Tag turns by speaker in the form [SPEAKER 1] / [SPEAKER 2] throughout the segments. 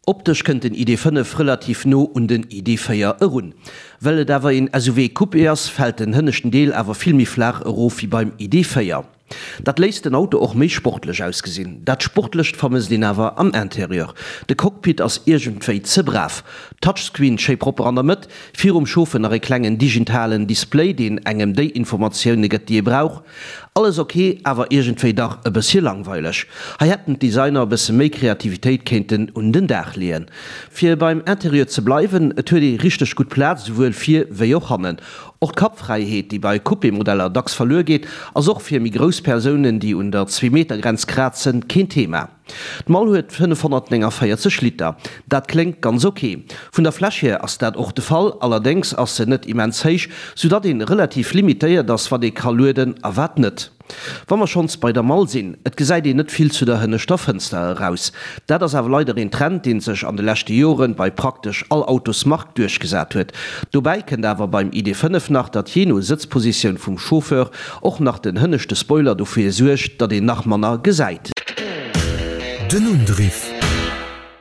[SPEAKER 1] Optesch kënnt den ID. 5 relativ no un den ID. 4 erun. Well et awer een SUV Coupé ass, fält den hënneschten Deel awer vill méi flaach erof wéi beim ID. 4. Dat léisst den Auto och méi sportlech ausgesinn. Dat Sportlecht vermësst een awer am Interieur. De Cockpit ass iergendwéi ze brav. Touchscreen schéi propper an der Mëtt, virum Chauffer nach e klengen digitalen Display, deen engem déi Informatioune gëtt, déi ee brauch. Alles ok, awer iergendwéi dach e bëssche langweileg. Hei hätten d'Designer e bësse méi Kreativitéit kéinten un den Dag leeën. Fir beim Interieur ze bleiwen, et huet ee richteg gutt Plaz, esouwuel vir wéi och hannen. Och d'Kappfräiheet, déi bei Coupé-Modeller dacks verluer geet, ass och fir méi grouss Persounen, déi un der Zweemeter-Grenz krazen, keen Thema. D'Mall huet 549 Liter. Dat kléngt ganz ok. Vun der Fläch hier ass dat och de Fall, allerdéngs ass se net immens héich, soudatt een relativ limitéiert ass wat ee ka lueden a wat net. Wa mer schonns bei der Mall sinn, et gesäit een net vill zu der hënneschter Fënster eraus. Dat ass awer leider een Trend, deen sech an de leschte Joren bei praktesch all Autosmark duerchgesat huet. Dobäi kënnt awer beim ID. 5 nach, datt jee no Sëtzpositioun vum Chauffeur och nach den hënneschte Spoiler dofir suergt, datt een nach manner gesäit.
[SPEAKER 2] Den Undriff.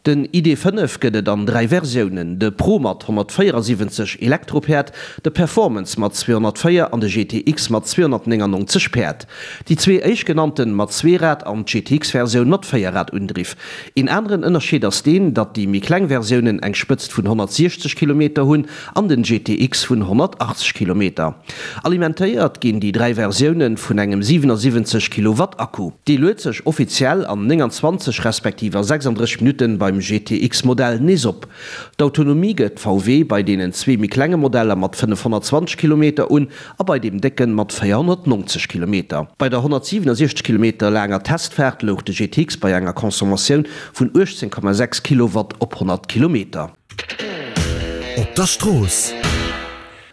[SPEAKER 1] Den ID. 5 gëtt et an 3 Versiounen, de Pro mat 174 Elektropäerd, de Performance mat 204 an de GTX mat 299 Päerd. Déi zwee éischtgenannten mat Zweerad an d'GTX-Versioun mat Véierradundriff. Een aneren Ënnerscheed ass deen, datt déi méi kleng Versiounen eng Spëtzt vun 160 Kilometer hunn an den GTX vun 180 Kilometer. Alimentéiert ginn déi 3 Versioune vun engem 77 Kilowatt Akku. Dee luet sech offiziell an 29 respektiv a 36 Minutten beim GTX Modell nees op. D'Autonomie gëtt VW bei deenen zwee méi klenge Modeller mat 520 Kilometer un a bei deem décken mat 490 Kilometer. Bei der 167 Kilometer laanger Testfaart louch de GTX bei enger Consommatioun vun 18,6 Kilowatt op 100 Kilometer.
[SPEAKER 2] Op der Strooss.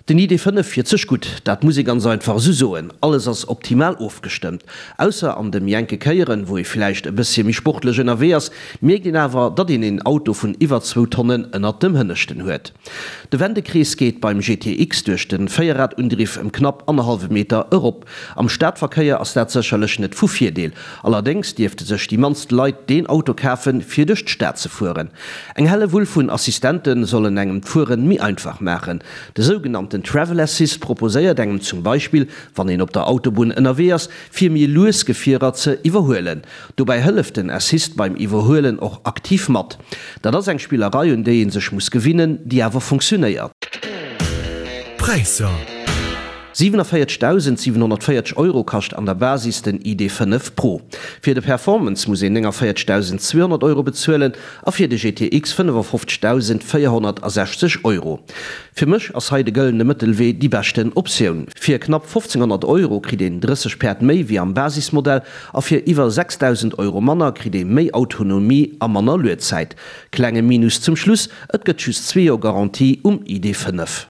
[SPEAKER 1] Den ID. 5 fiert sech gutt, dat muss ee ganz einfach esou soen. Alles ass optimal ofgestëmmt. Ausser an de méi enke Kéieren, wou ee villäicht e bëssche méi sportlech ënnerwee ass, mierkt een awer, datt een een Auto vun iwwer zwou Tonnen ënnert dem Hënneschten huet. De Wendekrees geet beim GTX duerch de Véierradundriff ëm knapp annerhallwe Meter erop. Am Stadverkéier ass dat sécherlech net vu Virdeel. Allerdéngs dierfte sech déi mannst Leit deen Auto kafen, fir duerch d'Stad ze fueren. Eng Hellewull vun Assistente sollen engem d'Fueren méi einfach maachen. De sougenannten Travel Assist proposéiert engem zum Beispill, wann een op der Autobunn ënnerwee ass, fir méi lues Gefierer ze iwwerhuelen. Dobäi hëlleft den Assist beim Iwwerhuelen och aktiv mat. Dat ass eng Spillerei, un déi ee sech muss gewinnen, déi awer funktionéiert.
[SPEAKER 2] Präisser.
[SPEAKER 1] 47.740 Euro kascht an der Basis den ID. 5 Pro. Fir de Performance muss een 49.200 Euro bezuelen a fir de GTX 55.460 Euro. Fir mech ass hei de gëllene Mëttelwee déi beschten Optioun. Fir knapp 1.500 Euro kritt een 30 Päerd méi wéi am Basismodell A fir iwwer 6.000 Euro manner kritt ee méi Autonomie a manner Luedzäit. Klenge Minus zum Schluss, et gëtt just zwee Joer Garantie um ID. 5.